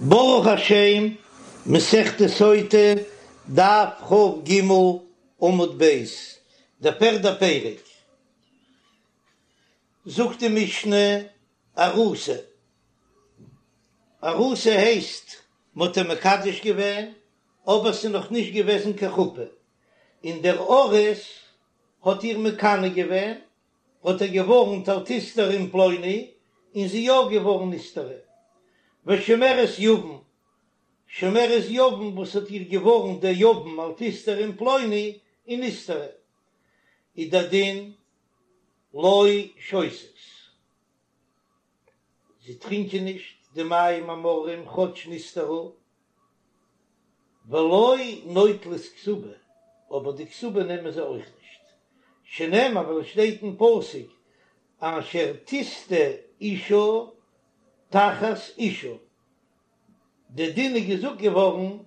ברוך השם, מסכת סוטה, דף כ"ג, עמוד ב', דער פערדער פרק. זאגט די משנה, ארוסה. ארוסה הייסט, מ'האט איר מקדש געווען, אבער ס'איז נאך נישט געוועזן קיין חופה, און דער ארוס האט איר מקנא געווען, האט איר געווארנט אל תסתרי עם פלוני, און זי יא געווארן נסתרה. ושומרת יבם, שומרת יבם וואס האט איר געווארנט דער יבם אל תסתרי עם פלוני, און נסתרה, איז דער דין לא שותות. זיי טרינקען נישט די מים המרים כאטש נסתרה, ולא נוטלות כתובה, אבער די כתובה נעמען זיי אויך נישט, שנאמר ווייל עס שטייט אין פסוק אשר תשטה אשה תחת אישה, די דין איז געזאגט געווארן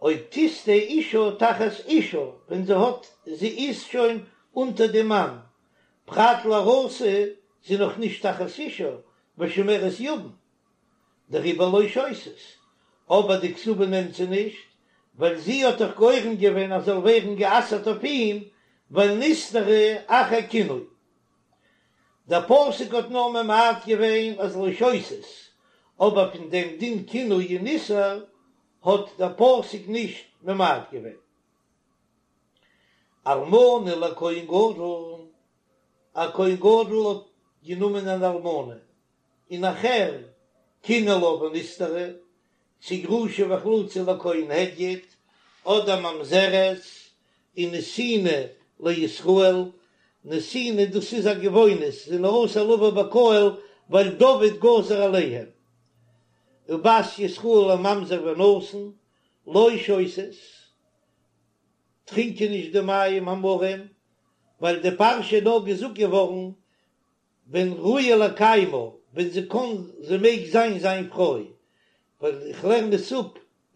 אויב תשטה אשה תחת אישה ווען זי האט זי איז שוין אונטער די מאן, פרט לארוסה זי נאך נישט תחת אישה ושומרת יבם, דעריבער לא שותות, אבער די כתובה נעמט זי נישט, ווייל זי האט דאך גורם געווען אז זאל ווערן גע'אסר'ט אויף אים, ווייל נסתרה אחר קינוי. דער פסוק האט נאר ממעט געווען אז לא שותות, אבער פון דעם דין קינוי און איסור האט דער פסוק נישט ממעט געווען. אלמנה לכהן גדול, א כהן גדול האט גענומען אן אלמנה, און נאכהער קינא לה ונסתרה, צו גרושה וחלוצה לכהן הדיוט, אדער ממזרת און נתינה לישראל, נתינה דאס איז א גבעונית, זענען אסור לבוא בקהל ווייל דוד גזר עליהם, ובת ישראל לממזר ונתין, לא שותות, טרינקען נישט די מים המרים, ווייל די פרשה איז נאר געזאגט געווארן ווען ראויה לקיימה, ווען זי קאן, זי מעג זיין זיין פרוי, ווייל איך לערן עס אפ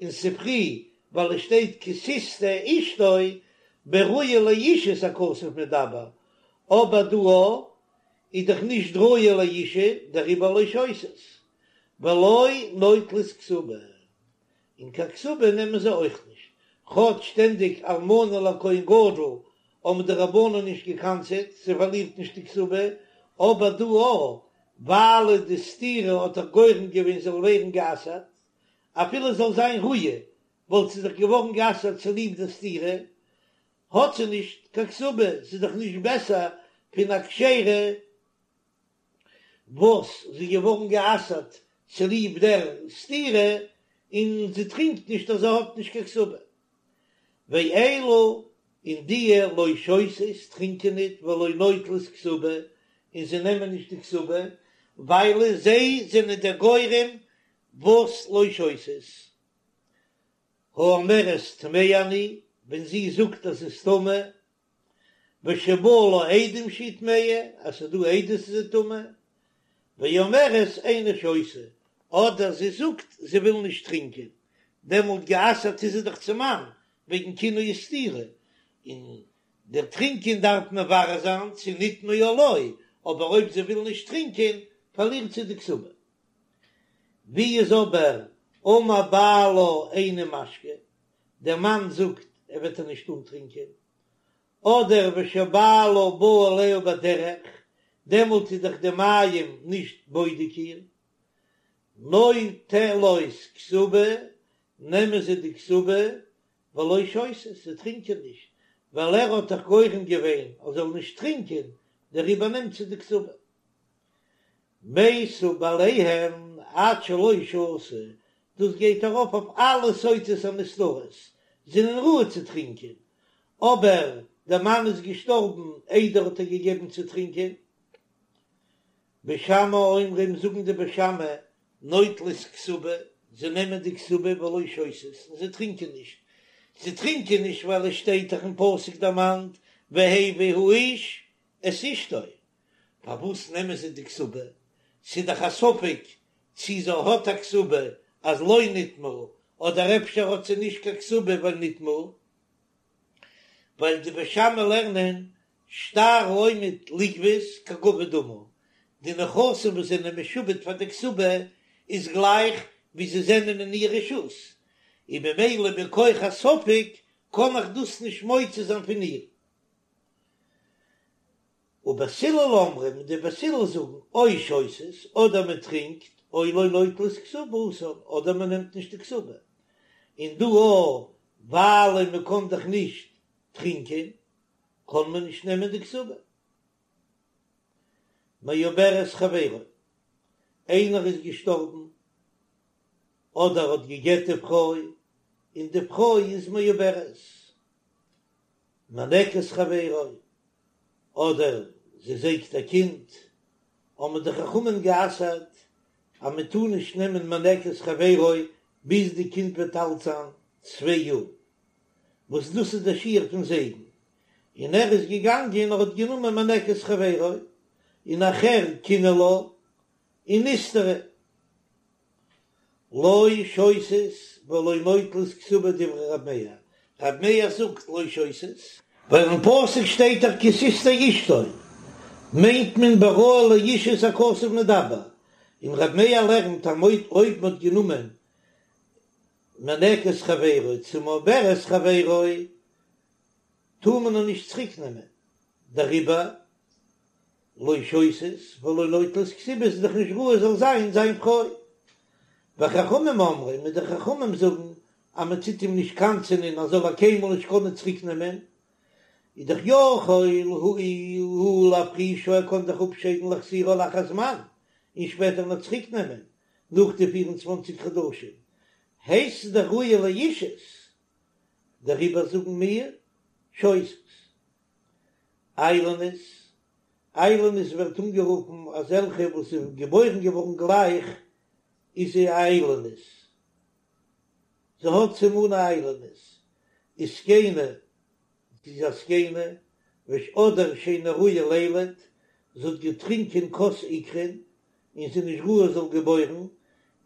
אין ספרי, ווייל עס שטייט כי תשטה אשתו בראויה לאישות הכתוב מדבר, אבער דא איז דאך נישט ראויה לאישות, דעריבער לא שותות, ולא נוטלות כתובה. און קיין כתובה נעמען זיי אויך נישט, כאטש שטענדיג אלמנה לכהן גדול האבן די רבנן נישט געקנס'עט, זי פארלירט נישט די כתובה, אבער דא א, ווייל די סתירה האט דאך גורם געווען זאל ווערן גע'אסר'ט, אפילו זאל זיין ראויה וואלט זי דאך געווארן גע'אסר'ט צוליב די סתירה, האט זי נישט קיין כתובה, ס'איז דאך נישט בעסער פון א כשרה. וואס זי איז געווארן גע'אסר'ט צוליב דער סתירה, און זי טרינקט נישט אז זי האט נישט קיין כתובה. ואלו און דיע לא שותות טרינקען ניט ולא נוטלות כתובה, און זיי נעמען נישט די כתובה, ווייל זיי זענען דער גורם וואס לא שותות. האומרת טמאה אני, ווען זי זאגט אז זי איז טמא, ושבאו לה עדים שהיא טמאה, אז ס'איז דא עדות אז זי איז טמא, ואומרת איני שותה, אדער זי זאגט זי וויל נישט טרינקען, דעמאלט גע'אסר'ט איז זי דאך צום מאן, וועגן קינוי וסתירה, און דער טרינקען דארף מברר זיין צו נטמאה או לא, אבער אויב זי וויל נישט טרינקען פארלירט זי די כתובה. ווי איז אבער אמר בעלה איני משקה, דער מאן זאגט ער וועט איר נישט אנטרינקען, אדער ושבעלה בא עליה בדרך, דעמאלט איז דאך די מים נישט בודק איר, נוטלות כתובה, נעמען זיי די כתובה, ולא שותות, זיי טרינקען נישט, ווייל ער האט דאך גורם געווען אז זאל נישט טרינקען, דעריבער נעמט זי די כתובה. מתו בעליהן עד שלא שתו, דאס גייט ארויף אויף אלע סוטות הנסתרות, זענען ראוי צו טרינקען, אבער דער מאן איז געשטארבן איידער האט ער געגעבן צו טרינקען. בית שמאי אומרים זאגן די בית שמאי נוטלות כתובה, זיי נעמען די כתובה ולא שותות און זיי טרינקען נישט, זיי טרינקען נישט ווייל עס שטייט דאך אין פסוק דערמאנט והביא האיש את אשתו, פארוואס נעמען זיי די כתובה? ס'איז דאך א ספק צי זי האט א כתובה אז לא נטמאה, אדער אפשר האט זי נישט קיין כתובה ווייל נטמאה. ווייל די בית שמאי לערנען שטר העומד לגבות כגבוי דמי, די נכסים וואס זענען משועבד פאר די כתובה איז גלייך. ווי זיי זענען אין איר רשות, און ממילא מכח הספק קען איך דאס נישט מוציא זיין פון איר. ובית הלל אומרים, די בית הלל זאגן, או שותות, אדער מען טרינקט, או לא נוטלות כתובתן, אדער מען נעמט נישט די כתובה. און דא אויך, ווייל מען קען דאך נישט טרינקען, קען מען נישט נעמען די כתובה. מעוברת חברו, איינער איז געשטארבן, אדער האט גע'גט די פרוי, און די פרוי איז מעוברת. מינקת חברו, אדער זי זייגט א קינד, האבן די חכמים גע'אסר'ט אז מען טאר נישט נעמען מינקת חברו ביז די קינד וועט אלט זיין צוויי יאר, וואס דאס איז דער שיעור פון זייגן, און ער איז געגאנגען און האט גענומען מינקת חברו, און נאכהער קינא לה, און נסתרה. לא שותות ולא נוטלות כתובה דברי רב מאיר, רב מאיר זאגט לא שותות, ווייל אין פסוק שטייט דאך כי תשטה אשתו, מיינט מען בראוי לאישות הכתוב מדבר, און רב מאיר לערנט אז אויב מ'האט גענומען מינקת חברו צו מעוברת חברו טאר מען איר נישט צוריק נעמען, דעריבער לא שותות ולא נוטלות כתובה איז דאך נישט ראוי זאל זיין זיין פרוי. וחכמים אומרים און די חכמים זאגן אז מען טוט אים נישט קנס'ענען אז זאל ער קיינמאל נישט קענען צוריק נעמען, איז דאך יכול הוא להפרישה ער קען דאך אפשיידן ולהחזירה לאחר זמן און שפעטער נאך צוריק נעמען נאך די 24 חדשים הייסט עס דאך ראויה לאישות דעריבער זאגן מיר שותות. איילונית, איילונית ווערט אנגערופן אזעלכע וואס איז געבוירן געווארן גלייך איז זי א איילונית, זי האט סימני איילונית, וזקנה, זי איז א זקנה, וש אדער שאינה ראויה לילד, זי האט געטרינקען כוס עיקרין און זי איז נישט ראוי זאל געבוירן,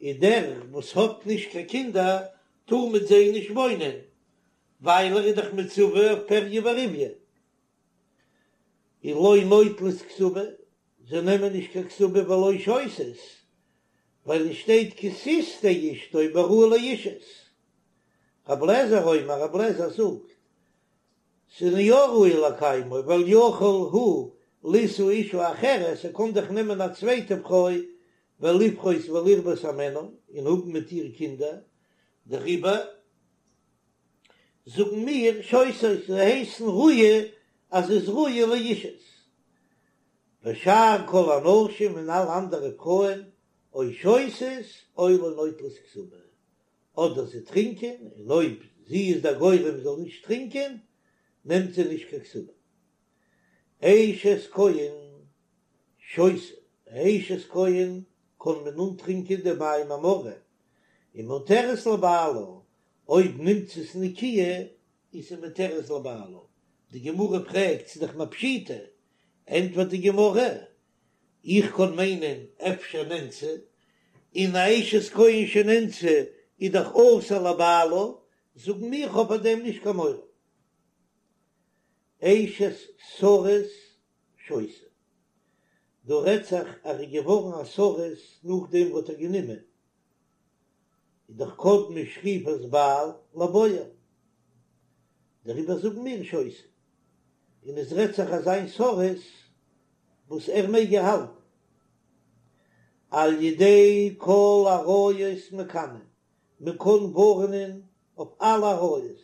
און דער וואס האט נישט קיין קינדער טאר מיט זיי נישט וואוינען, ווייל ער איז דאך מצווה אויף פריה ורביה, און לא נוטלות כתובה, זיי נעמען נישט קיין כתובה ולא שותות, ווייל עס שטייט כי תשטה אשתו בראוי לאישות. רב לעזער אומר, רב לעזער זאגט, ס'איז יא ראוי לקיימו, ווייל יכול הוא לישא אשה אחרת, ער קען דאך נעמען א צווייטע פרוי ולפרות ולרבות הימנה, און האבן מיט איר קינדער, דעריבער זאגן מיר שותות, זיי הייסן ראויה אז ס'איז ראויה לאישות. ושאר כל הנשים און אלע אנדערע פרויען או שותות או לא נוטלות כתובה, אדער זיי טרינקען, און אויב זי איז דער גורם זאל נישט טרינקען, נעמט זי נישט קיין כתובה. אשת כהן שותה, אשת כהן קען מען אנטרינקען די מים המרים, ומותרת לבעלה, אויב נמצאת נקיה איז זי מותרת לבעלה, די גמרא פרעגט ס'איז דאך פשיטא, ענטפערט די גמרא, איך קען מיינען אפשר נאנסה, און א אשת כהן שנאנסה איז דאך אסור לבעלה, זאגן מיר כ'האב פאר דעם נישט קיין מורא. אשת סריס שותה, דא רעדט זיך אז ער איז געווארן א סריס נאכדעם וואס האט ער גענומען, איז דאך קדמה שכיפת בעל לבועל, דעריבער זאגן מיר שותה, און עס רעדט זיך אזא סריס וואס ער מעג איר האלטן, על ידי כל עריות מקנין, מען קען ווארענען אויף אלע עריות,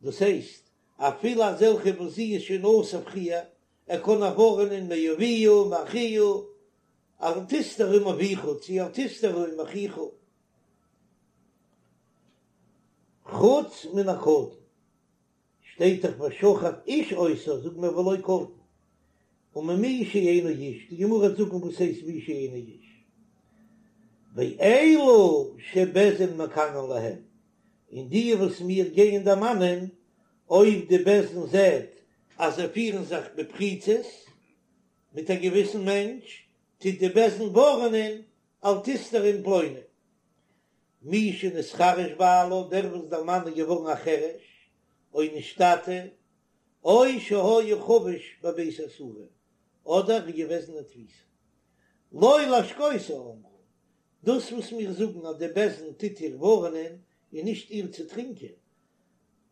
דאס הייסט אפילו אזעלכע וואס זי איז שוין אסור פריער, ער קען איר ווארענען מאביה מאחיה, אל תסתרי עם אביך צו אל תסתרי עם אחיך, חוץ מן הקטן, שטייט דאך ושכב איש אותה, זאגט מען ולא קטן, וממי שאינו איש, די גמרא וועט זאגן וואס הייסט מי שאינו איש, ואלו שבית דין מקנין להם, און די וואס מיר גייען דערמאנען, אויב די בית דין זעט אז זיי פירן זיך בפריצות מיט א געוויסן מענטש, טוט די בית דין ווארענען אל תסתרי עם פלוני. מי שנתחרש בעלה, דער וואס דער מאן איז געווארן א חרש, או נשתטה, או שהיה חבוש בבית האסורין, אדער איז געוועזן אין תפיסה. לא להשקותה אמרו. דאס וואס מיר זאגן אז די בית דין טוט איר ווארענען איז נישט איר צו טרינקען,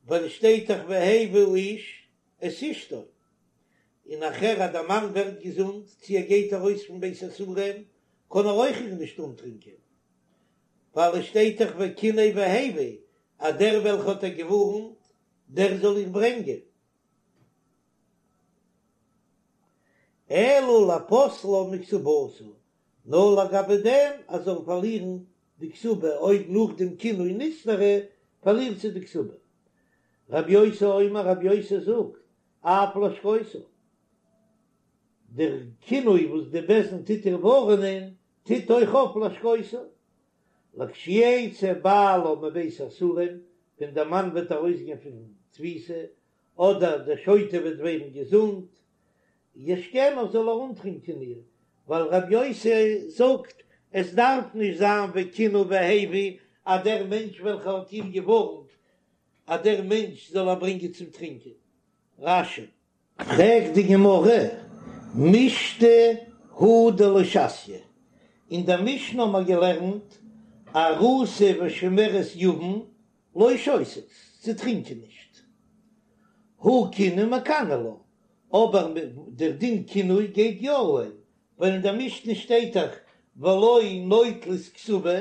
ווייל עס שטייט דאך והביא האיש את אשתו, און נאכהער אז דער מאן ווערט געזונט צו ער גייט ארויס פון בית האסורים קען ער אויך איר נישט אנטרינקען, ווייל עס שטייט דאך וקנא והביא אז דער וועלכע האט איר געווארנט דער זאל איר ברענגען. אלא לפוסלה מכתובתה, נאר לגבי דעם אז זאל פארלירן די כתובה, אויב נאך דעם קינוי נסתרה פארלירט זי די כתובה. רבי יוסי אומר, רבי יוסי זאגט, אף להשקותה, דער קינוי וואס די בית דין טוט איר ווארענען, טוט אויך אויף להשקותה, לכשיצא בעלה מבית האסורים, ווען דער מאן וועט ארויסגיין פון תפיסה, אדער דער שוטה וועט ווערן געזונט, ישקנה זאל ער אנטרינקען איר, ווייל רבי יוסי זאגט, עס דארף נישט זיין וקנא והביא אז דער מענטש וועלכער האט איר געווארנט אז דער מענטש זאל איר ברענגען צום טרינקען. רש"י. פרעגט די גמרא, משתא הוא דלא שתיא, אין דער משנה האבן מיר געלערנט ארוסה ושומרת יבם לא שותות, זיי טרינקען נישט, הא קינוי מקני לה, אבער דער דין קינוי גייט יא אהן, ווייל אין דער משנה שטייט דאך ולא נוטלות כתובה,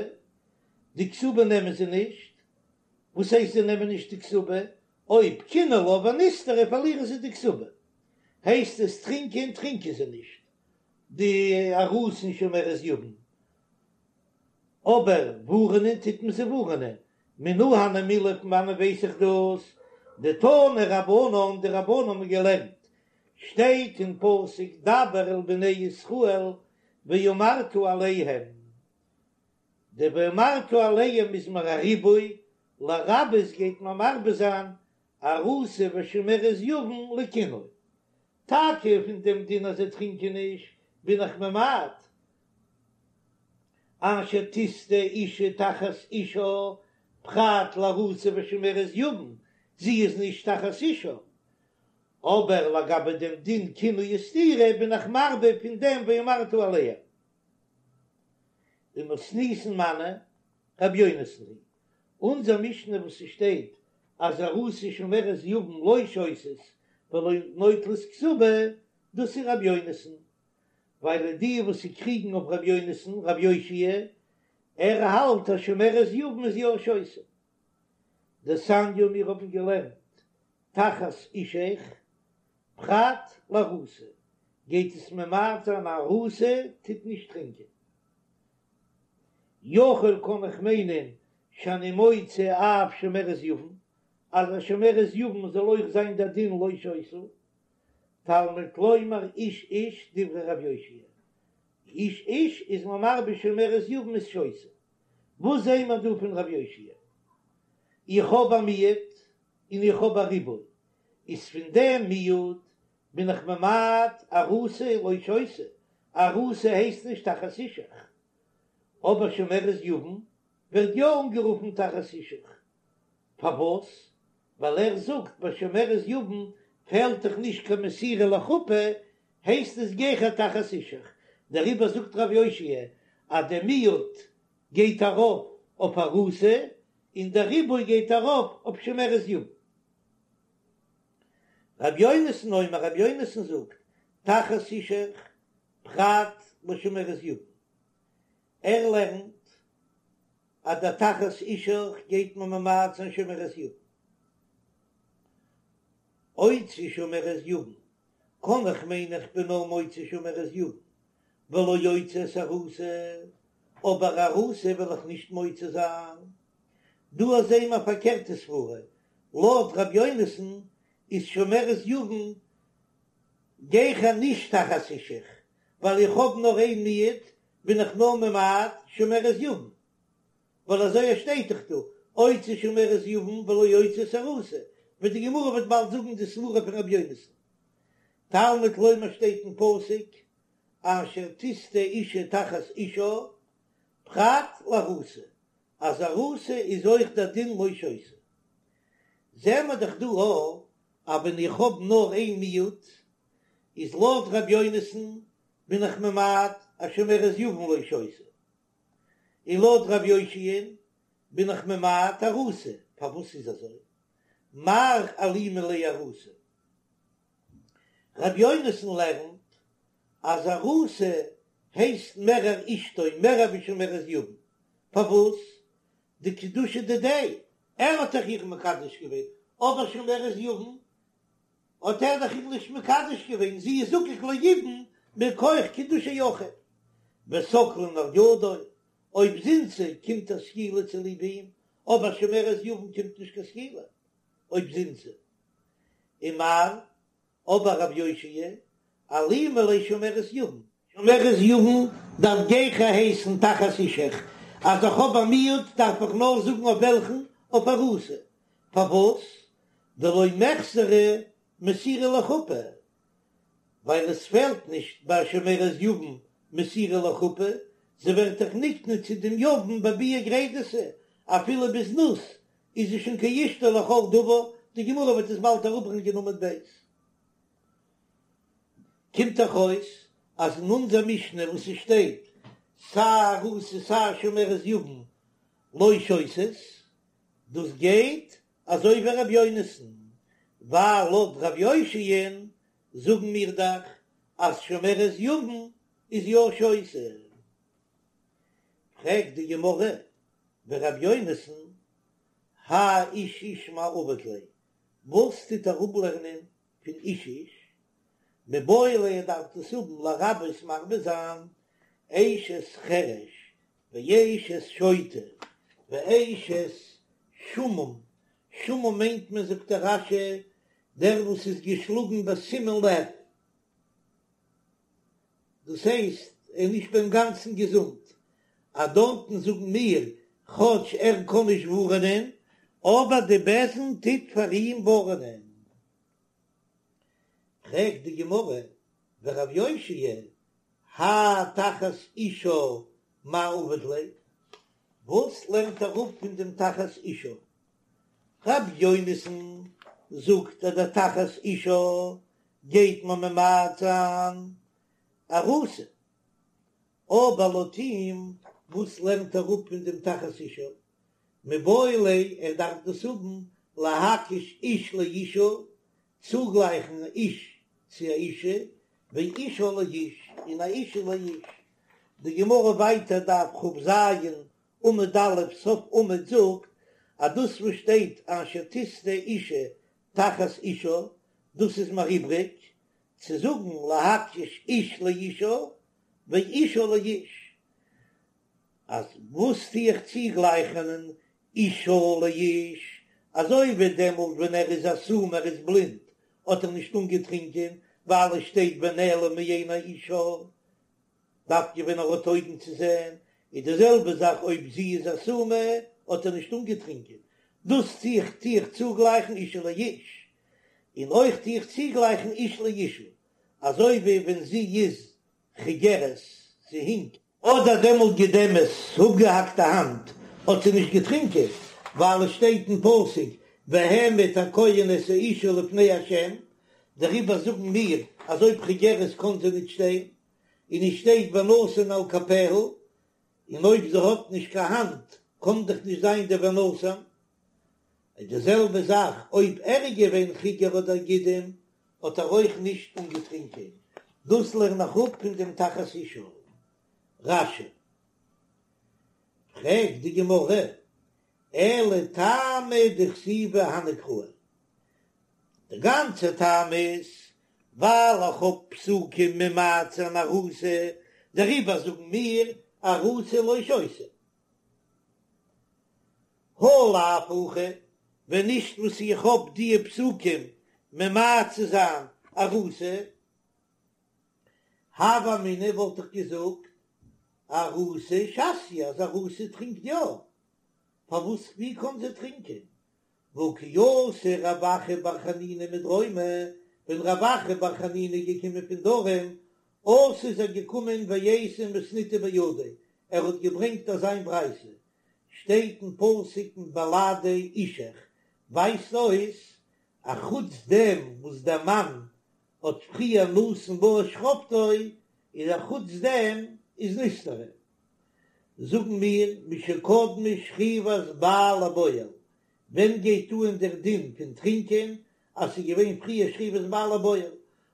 די כתובה נעמען זיי נישט, וואס הייסט זיי נעמען נישט די כתובה? אויב קינאו לה ונסתרה פארלירן זיי די כתובה, הייסט עס טרינקען טרינקען זיי נישט די ארוסה און שומרת יבם, אבער ווארענען טוט מען זיי ווארענען, מנא הני מילי פון וואנען ווייס איך דאס? דתנו רבנן, די רבנן האבן געלערנט, שטייט אין פסוק דבר אל בני ישראל ואמרת אליהם, די ואמרת אליהם איז מיר א ריבוי, לרבות גייט מען מרבה זיין ארוסה ושומרת יבם לקינוי. טאקע פון דעם דין אז זיי טרינקען נישט בין איך ממעט, אשר תשטה אשה תחת אישה פרט לארוסה ושומרת יבם, זי איז נישט תחת אישה, אבער לגבי דעם דין קינוי וסתירה בין איך מרבה פון דעם ואמרת אליהם. ומתניתין מני רבי יונתן היא אונזער משנה וואס ס'שטייט אז ארוסה ושומרת יבם לא שותות ולא נוטלות כתובה, דאס איז רבי יונתן, ווייל די וואס ס'קריגן אויף רבי יונתן, רבי יאשיה, ער האלט אז שומרת יבם איז יא שותה. דתניא מיר האבן געלערנט תחת אישך פרט לארוסה, גייט עס ממעט זיין ארוסה טוט נישט טרינקען. יכול קען איך מיינען שאני מוציא אף שומרת יבם, אז א שומרת יבם זאל אויך זיין דער דין לא שותה, תלמוד לומר איש איש דברי רב יאשיה, איש איש איז מען מרבה שומרת יבם איז שותה. וואס זעהן מיר דא פון רב יאשיה? איך האב א מיעוט און איך האב א ריבוי, איז פון דעם מיעוט בין איך ממעט ארוסה לא שותה, ארוסה הייסט נישט תחת אישך, אבער שומרת יבם ווערט יא אנגערופן תחת אישך, פארוואס? ווייל ער זאגט ביי שומרת יבם פעלט דאך נישט קיין מסירה לחופה, הייסט עס גיכער תחת אישך, דעריבער זאגט רב יאשיה אז דער מיעוט גייט ארויף אויף ארוסה און דער ריבוי גייט ארויף אויף שומרת יבם. רבי יונתן אומר, רבי יונתן זאגט, תחת אישך פרט לשומרת יבם. ער לערנט אז דער תחת אישך גייט מען ממעט זיין שומרת יבם. אוציא שומרת יבם, קען איך מיינען איך בין נאר מוציא שומרת יבם, ולא אוציא את ארוסה, אבער ארוסה וועל איך נישט מוציא זיין. דא זעהן מיר א פארקערטע סברה, לויט ר' יונתן איז שומרת יבם גיכער נישט תחת אישך, ווייל איך האב נאר איין מיעוט בין איך נאר ממעט שומרת יבם, ווייל אזוי שטייט דאך דא, אוציא שומרת יבם ולא אוציא את ארוסה, ווי די גמרא וועט באלד זאגן די סברה פון ר' יונתן. תלמוד לומר שטייט אין פסוק אשר תשטה אשה תחת אישה, פרט לארוסה, אז ארוסה איז אויך דער דין לא שותה. זעהן מיר דאך דא א אז ווען איך האב נאר איין מיעוט, איז לויט ר' יונתן בין איך ממעט אז שומרת יבם לא שותה. און לויט רב יאשיה'ן בין איך ממעט ארוסה, פארוואס איז אזוי? מר אלימא ליה ארוסה. רב יונתן לערנט אז ארוסה הייסט מערער אשתו מערער ווי שומרת יבם, פארוואס? דקידושי דידיה, ער האט דאך איר מקדש געווען, אבער שומרת יבם האט ער דאך איר נישט מקדש געווען, זי איז זקוק ליבום מכח קידושי אחיו, וסקלין על ידו, אויב זינתה קומט איר סקילה צוליב אים, אבער שומרת יבם קומט נישט קיין סקילה אויב זינתה. ומר, אבער רב יאשיה, אלימא ליה שומרת יבם. שומרת יבם דארף גיכער הייסן תחת אישך, אז איך האב א מיעוט דארף איך נאר זאגן אויף וועלכן, אויף ארוסה. פארוואס? דלא מיחסרא מסירה לחופה, ווייל עס פעלט נישט ביי שומרת יבם מסירה לחופה, זי ווערט דאך נקנה צו דעם יבם בביאה גרידתא, אפילו בזנות איז זי שוין כאשתו לכל דבר, די גמרא וועט עס באלד אראפברענגען עמוד ב'. קומט דאך אויס אז אין אונזער משנה וואס עס שטייט סיי ארוסה סיי שומרת יבם לא שותות, דאס גייט אזוי ווי ר' יונתן, ווייל לויט ר' יאשיה'ן זאגן מיר דאך אז שומרת יבם איז יא שותה. פרעגט די גמרא, ור' יונתן, האי איש איש מאי עביד ליה, וואס טוט ער אפלערנען פון איש איש? מיבעי ליה ער דארף דאס האבן לרבות מרבה זיין אשת חרש ואשת שוטה ואשת שעמום, שעמום מיינט מען זאגט דער רש"י דער וואס איז געשלאגן בסימון לב, דאס הייסט ער איז נישט ביים גאנצן געזונט, אז דארטן זאגן מיר כאטש ער קען נישט ווארענען אבער די בית דין טוט פאר אים ווארענען. פרעגט די גמרא ורב יאשיה האי תחת אישה מאי עביד ליה, וואס לערנט ער אפ פון דעם תחת אישה? רב יונתן זאגט אז דער תחת אישה גייט מען ממעט זיין ארוסה, אבער לויט אים וואס לערנט ער אפ פון דעם תחת אישה? מיבעי ליה ער דארף דאס האבן להקיש איש לאישה, צוגלייכן איש צו א אישה, ואישה לאיש, און א אישה לאיש. די גמרא ווייטער דף כ"ז עמוד א' סוף עמוד זאגט אז דאס וואס שטייט אשר תשטה אישה תחת אישה דאס איז מיר איבריג צו זאגן להקיש איש לאישה ואישה לאיש, אז וואס טו איך צוגלייכענען אישה לאיש, אזוי ווי דעמאלט ווען ער איז א סומא ער איז בלינד האט ער נישט אנגעטרינקען ווייל עס שטייט ונעלם מעיני אישה, דווקא ווען ער האט אויגן צו זען, איז די זעלבע זאך אויב זי איז א סומא האט ער נישט אנגעטרינקען, דאס טו איך טו איך צוגלייכן אישה לאיש, און אויך טו איך צוגלייכן איש לאישה, אזוי ווי ווען זי איז חיגרת, זי הינקט. אדער דעמאלט גידמת, אפגעהאקט א האנט, האט זי נישט געטרינקען, ווייל עס שטייט אין פסוק והעמיד הכהן את האישה לפני ה', דעריבער זאגן מיר אז אויב חיגרת קען זי ניט שטיין, און עס שטייט ונתן על כפיה, און אויב זי האט נישט קיין האנט קען דאך נישט זיין די ונתן. איז די זעלבע זאך אויב ער איז געווען חיגר אדער גידם האט ער אויך נישט אנגעטרינקען, דאס לערן איך אפ פון דעם תחת אישה. רש"י. פרעגט די גמרא, אלא טעמא דכתיבי הני קראי, די גאנצע טעם איז ווייל איך האב פסוקים ממעט זיין ארוסה, דעריבער זאגן מיר ארוסה לא שותה. הא לאו הכי, ווען נישט וואס איך האב דיע פסוקים ממעט צו זיין ארוסה, הוה אמינא וואלט איך געזאגט ארוסה שתיא אז ארוסה טרינקט יא, פארוואס ווי קען זי טרינקען? והא כי אתא רב אחא בר חנינא מדרומא, ווען רב אחא בר חנינא איז געקומען פון דרום, אתא איז ער געקומען ואייתי מתניתא בידיה, ער האט געברענגט אזיין ברייתא, שטייט אין פסוק מבלעדי אישך, ווייזט אויס א חוץ דעם וואס דער מאן האט פריער נתן בה את שכבתו, איז א חוץ דעם איז נסתרה. זאגן מיר משקדמה שכיבת בעל לבועל, ווען גייט אן דער דין פון טרינקען אז ס'איז געווען פריער שכיבת בעל לבועל,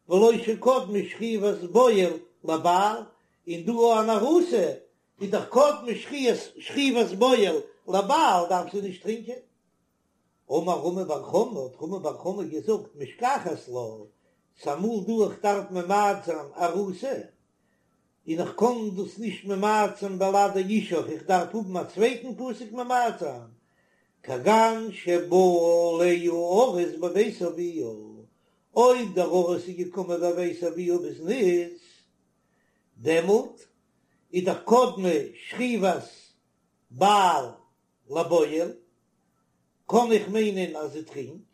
ולא שקדמה שכיבת בועל לבעל, און דא אן ארוסה איז דאך קדמה שכיבת בועל לבעל דארף זי נישט טרינקען. אמר רמי בר חמא, האט רמי בר חמא געזאגט, משכחת לה, ס'אמאל דא איך דארף ממעט זיין ארוסה, און איך קען דאס נישט ממעט זיין בלעדי אישך, איך דארף האבן א צווייטן פסוק ממעט זיין, כגון שבא עליה ארוס בבית אביה, אויב דער ארוס איז געקומען בבית אביה בזנות, דעמאלט איז דאך קדמה שכיבת בעל לבועל, קען איך מיינען אז זי טרינקט,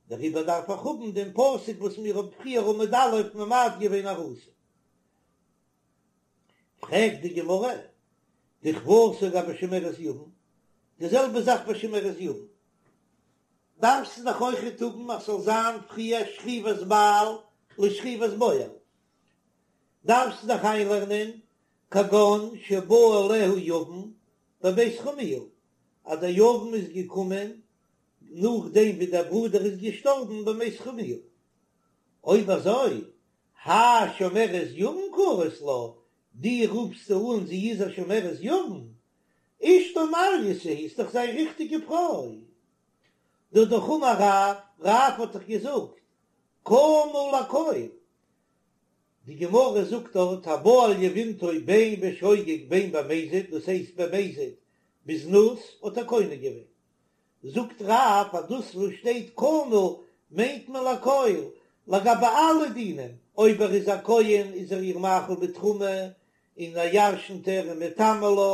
דעריבער דארף איך האבן דעם פסוק וואס מיר האבן פריער עמוד א' ממעט געווען ארוסה. פרעגט די גמרא, דכוותה גבי שומרת יבם, די זעלבע זאך ביי שומרת יבם, דארפסטו דאך אויכעט האבן אז ס'זאל זיין פריער שכיבת בעל לשכיבת בועל, דארפסטו דאך איינלערנען כגון שבא עליה יבם בבית חמיה, אז דער יבם איז געקומען נאכדעם ווי דער ברודער איז געשטארבן בבית חמיה. אויב אזוי, האי שומרת יבם קרית לה, דו רופסט אן זי איז א שומרת יבם? אשתו מעלייתא היא, איז דאך זיין ריכטיגע פרוי. דהא דאך אמר רב, רב האט דאך געזאגט, קנה לכל. די גמרא זאגט דארט הבא על יבמתו בין בשוגג בין במזיד, דאס הייסט במזיד בזנות האט ער קונה געווען. זאגט רב אז דאס וואס שטייט קנה מיינט מען לכל, לגבי אלע דינים, אויב ער איז א כהן איז ער איר מאכיל בתרומה און ער ירשנט איר און מטמא לה,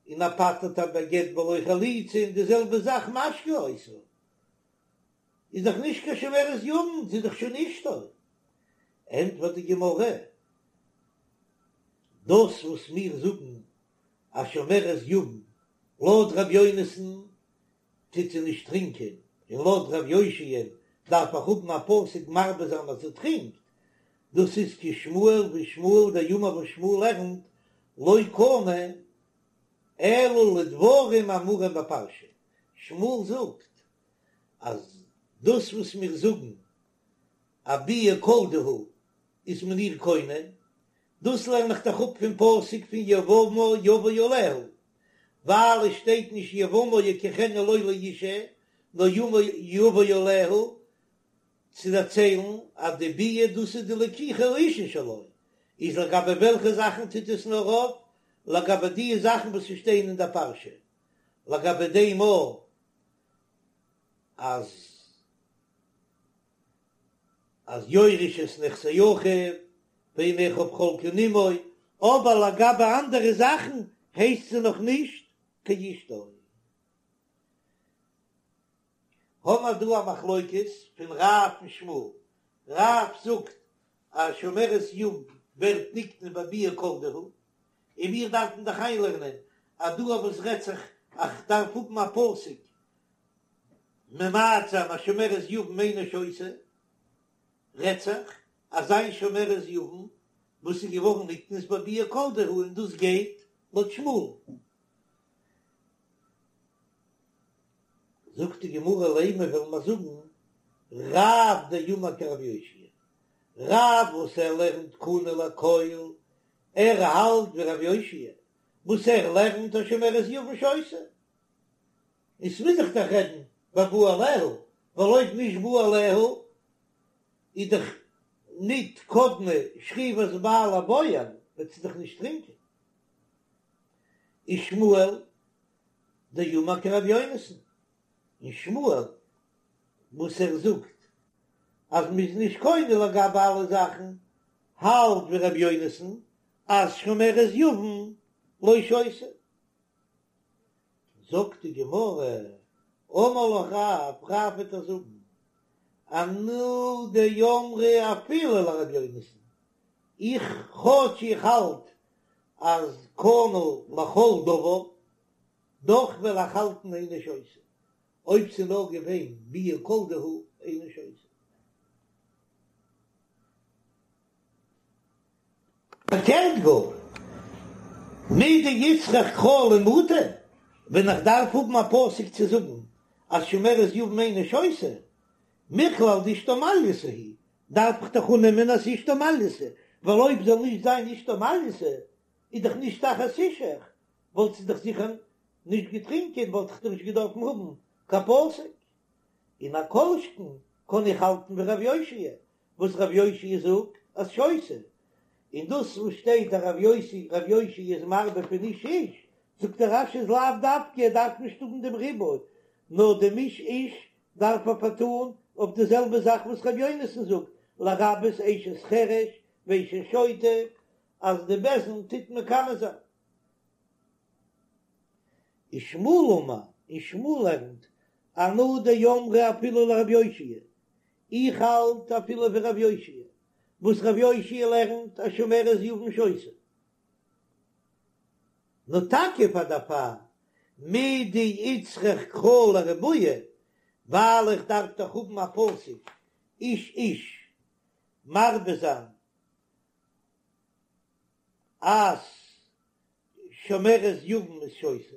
און ער פטר'ט איר בגט בלא חליצה, און די זעלבע זאך משקה אותה. איז דאך נישט קיין שומרת יבם, זי איז דאך שוין אשתו. ענטפערט די גמרא, דאס וואס מיר זאגן אז שומרת יבם לויט ר' יונתן טוט זי נישט טרינקען, און לויט ר' יאשיה'ן דארף איך האבן א פסוק מרבה זיין אז זי טרינקט, דאס איז כשמואל ווי שמואל דאמר וואס שמואל לערנט לא קנה אלא לדברים האמורים בפרשה, שמואל זאגט אז דאס וואס מיר זאגן א ביאה כל דהו איז מען איר קונה, דאס לערן איך דאך אפ פון פסוק פון יבמה יבא עליה, ווייל עס שטייט נישט יבמה יקחנה לו לאישה, נאר יבא עליה, צו דערציילן אז די ביאה דאס איז די לקיחה האישה שלו, איז לגבי וועלכע זאכן טוט עס נאר אויף? לגבי די זאכן וואס שטייען אין דער פרשה, לגבי דעם אויך אז אז יורש את נכסי אחיו ואין אחיו חולקין עמו, אבער לגבי אנדערע זאכן הייסט זי נאך נישט קיין אשתו. האמער דא א מחלוקת פון רב און שמואל, רב זאגט אז שומרת יבם ווערט נקנה בביאה כל דהו, און מיר דארפן דאך איינלערנען אז דא אויף וואס רעדט זיך איך דארף האבן א פסוק ממעט זיין אז שומרת יבם אינה שותה, רעדט זיך אז איין שומרת יבם וואס איז געווארן נקנית בביאה כל דהו און דאס גייט לויט שמואל. זאגט די גמרא לימא וועלן מיר זאגן רב דאמר כרבי יאשיה, רב וואס ער לערנט קנה לכל, ער האלט ווי רבי יאשיה וואס ער לערנט אז שומרת יבם שותה, און ס'מוז זיך דאך רעדן בבא עליה, ווייל אויב נישט בא עליה איז דאך ניט קדמה שכיבת בעל לבועל, וועט זי דאך נישט טרינקען. ושמואל דאמר כרבי יונתן, און שמואל וואס ער זאגט אז מ'איז נישט קונה לגבי אלע זאכן, האלט ווי רבי יונתן אז שומרת יבם לא שותה. זאגט די גמרא, אמר לך רב, רב וועט דיר זאגן, אנא דאמרי אפילו לרבי יונתן, איך כאטש איך האלט אז קנה לכל דבר, דאך וועל איך האלטן אינה שותה, אויב ס'איז נאר געווען ביאה כל דהו אינה שותה. פארקערט גאר. מדאיצטריך קרא למעוטי, ווען איך דארף האבן א פסוק צו זאגן אז שומרת יבם אינה שותה, מכלל דאשתו מעלייתא היא, דארף איך דאך אננעמען אז אשתו מעלייתא, ווייל אויב זאל נישט זיין אשתו מעלייתא, איז דאך נישט תחת אישך, וואלט זי דאך זיכער נישט געטרינקען, וואלט איך דאך נישט געדארפן האבן קיין פסוק. און א כל שכן קען איך האלטן ווי רב יאשיה, וואס רב יאשיה זאגט אז שותה, און דאס וואס שטייט אז רב יוסי רב יאשיה איז מרבה פון איש איש, זאגט דער רש"י איז לאו דווקא ער דארף נישט האבן דעם ריבוי, נאר דעם איש איש דארף ער פארטאן אויף די זעלבע זאך וואס רבי יונתן זאגט לרבות אשת חרש ואשת שוטה אז די בית דין טוט מקנא זיין. ושמואל אמר, און שמואל לערנט, אנא דאמרי אפילו לרב יאשיה, איך האלט אפילו ווי רב יאשיה, וואס רב יאשיה לערנט אז שומרת יבם שותה. נאר טאקע פאר דערפאר מדאיצטריך קרא לרבויי, ווייל איך דארף דאך האבן א פסוק איש איש מרבה זיין אז שומרת יבם איז שותה,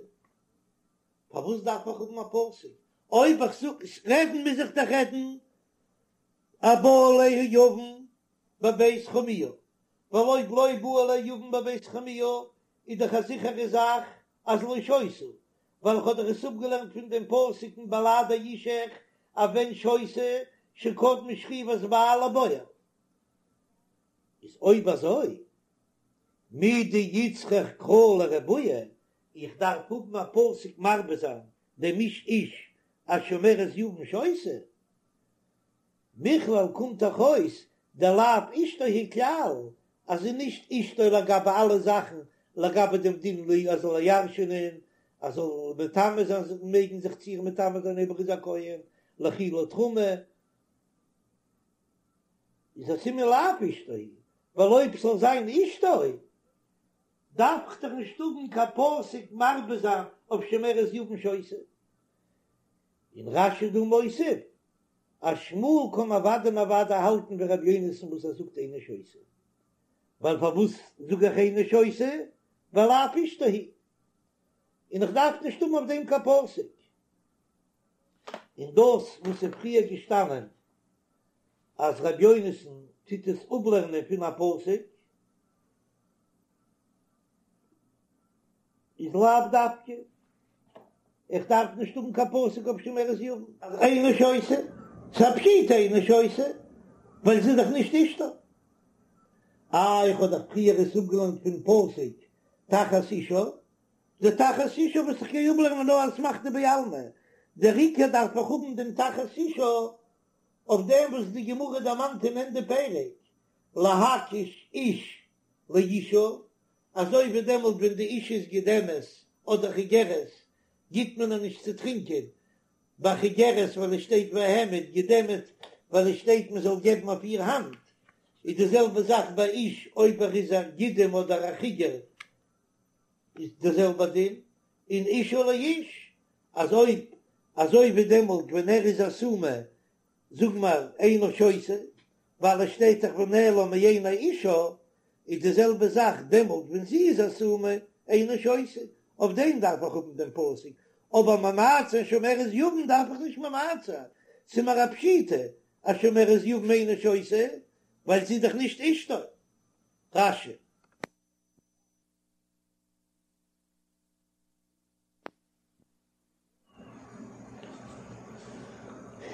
פארוואס דארף איך האבן א פסוק? אויב איך זאג רעדן מוז איך דאך רעדן אז בא עליה יבם בבית חמיה, ווייל אויב לא בא עליה יבם בבית חמיה איז דאך א זיכערע זאך אז לא שותה, ווייל איך האב דאך עס אפגעלערנט פון דעם פסוק אין בלעדי אישך אז ווען שותה שקדמה שכיבת בעל לבועל. איז אויב אזוי מדאיצטריך קרא לרבויי, איך דארף האבן א פסוק מרבה זיין דעם איש איש אז שומרת יבם שותה, מכלל קומט דאך אויס דלאו אשתו היא כלל, אז זי נישט אשתו לגבי אלע זאכן, לגבי דעם דין לי אז זאל איר ירש'ענען, אז זאל מטמא זיין מעגן זיך צו איר מטמא זיין אויב ער איז א כהן, לאכילה תרומה. איז א סימן לאו אשתו היא, ווייל אויב ס'זאל זיין אשתו דארף איך דאך נישט האבן קיין פסוק מרבה זיין אויף שומרת יבם שותה. און רש"י דא מוסיף אז שמואל קען אוודאי און אוודאי האלטן ווי ר' יונתן וואס ער זאגט אינה שותה, ווייל פארוואס זאג איך אינה שותה? ווייל לאו אשתו היא, און איך דארף נישט האבן אויף דעם קיין פסוק. און דאס וואס איז פריער געשטאנען אז ר' יונתן טוט עס אפלערנען פון א פסוק איז לאו דווקא, איך דארף נישט האבן קיין פסוק אויף שומרת יבם אז אינה שותה, ס'איז א פשיטא אינה שותה ווייל זי איז דאך נישט אשתו. אה, איך האב דאך פריער עס אפגעלערנט פון פסוק תחת אישה, די תחת אישה וואס איך גיי אפלערנען נאר אסמכתא בעלמא, דער עיקר דארף איך האבן דעם תחת אישה אויף דעם וואס די גמרא דערמאנט אין ענדע פרק, להקיש איש לאישה, אזוי ווי דעמאלט ווען די אישה איז גידמת אדער חיגרת גיט מען איר נישט צו טרינקען, ביי חיגרת ווייל עס שטייט והעמיד, גידמת ווייל עס שטייט מען זאל געבן אויף איר האנט, איז די זעלבע זאך ביי איש אויב ער איז א גידם אדער א חיגר איז די זעלבע דין, און אישה לאיש, אז אויב אזוי ווי דעמאלט ווען ער איז א סומא זאג מיר אינה שותה, ווייל עס שטייט דאך ונעלם מעיני אישה, איז די זעלבע זאך דעמאלט ווען זי איז א סומא אינה שותה, אויף דעם דארף איך האבן דעם פסוק, אבער ממעט זיין שומרת יבם דארף איך נישט ממעט זיין, ס'איז מיר א פשיטא אז שומרת יבם אינה שותה, ווייל זי איז דאך נישט אשתו. רש"י.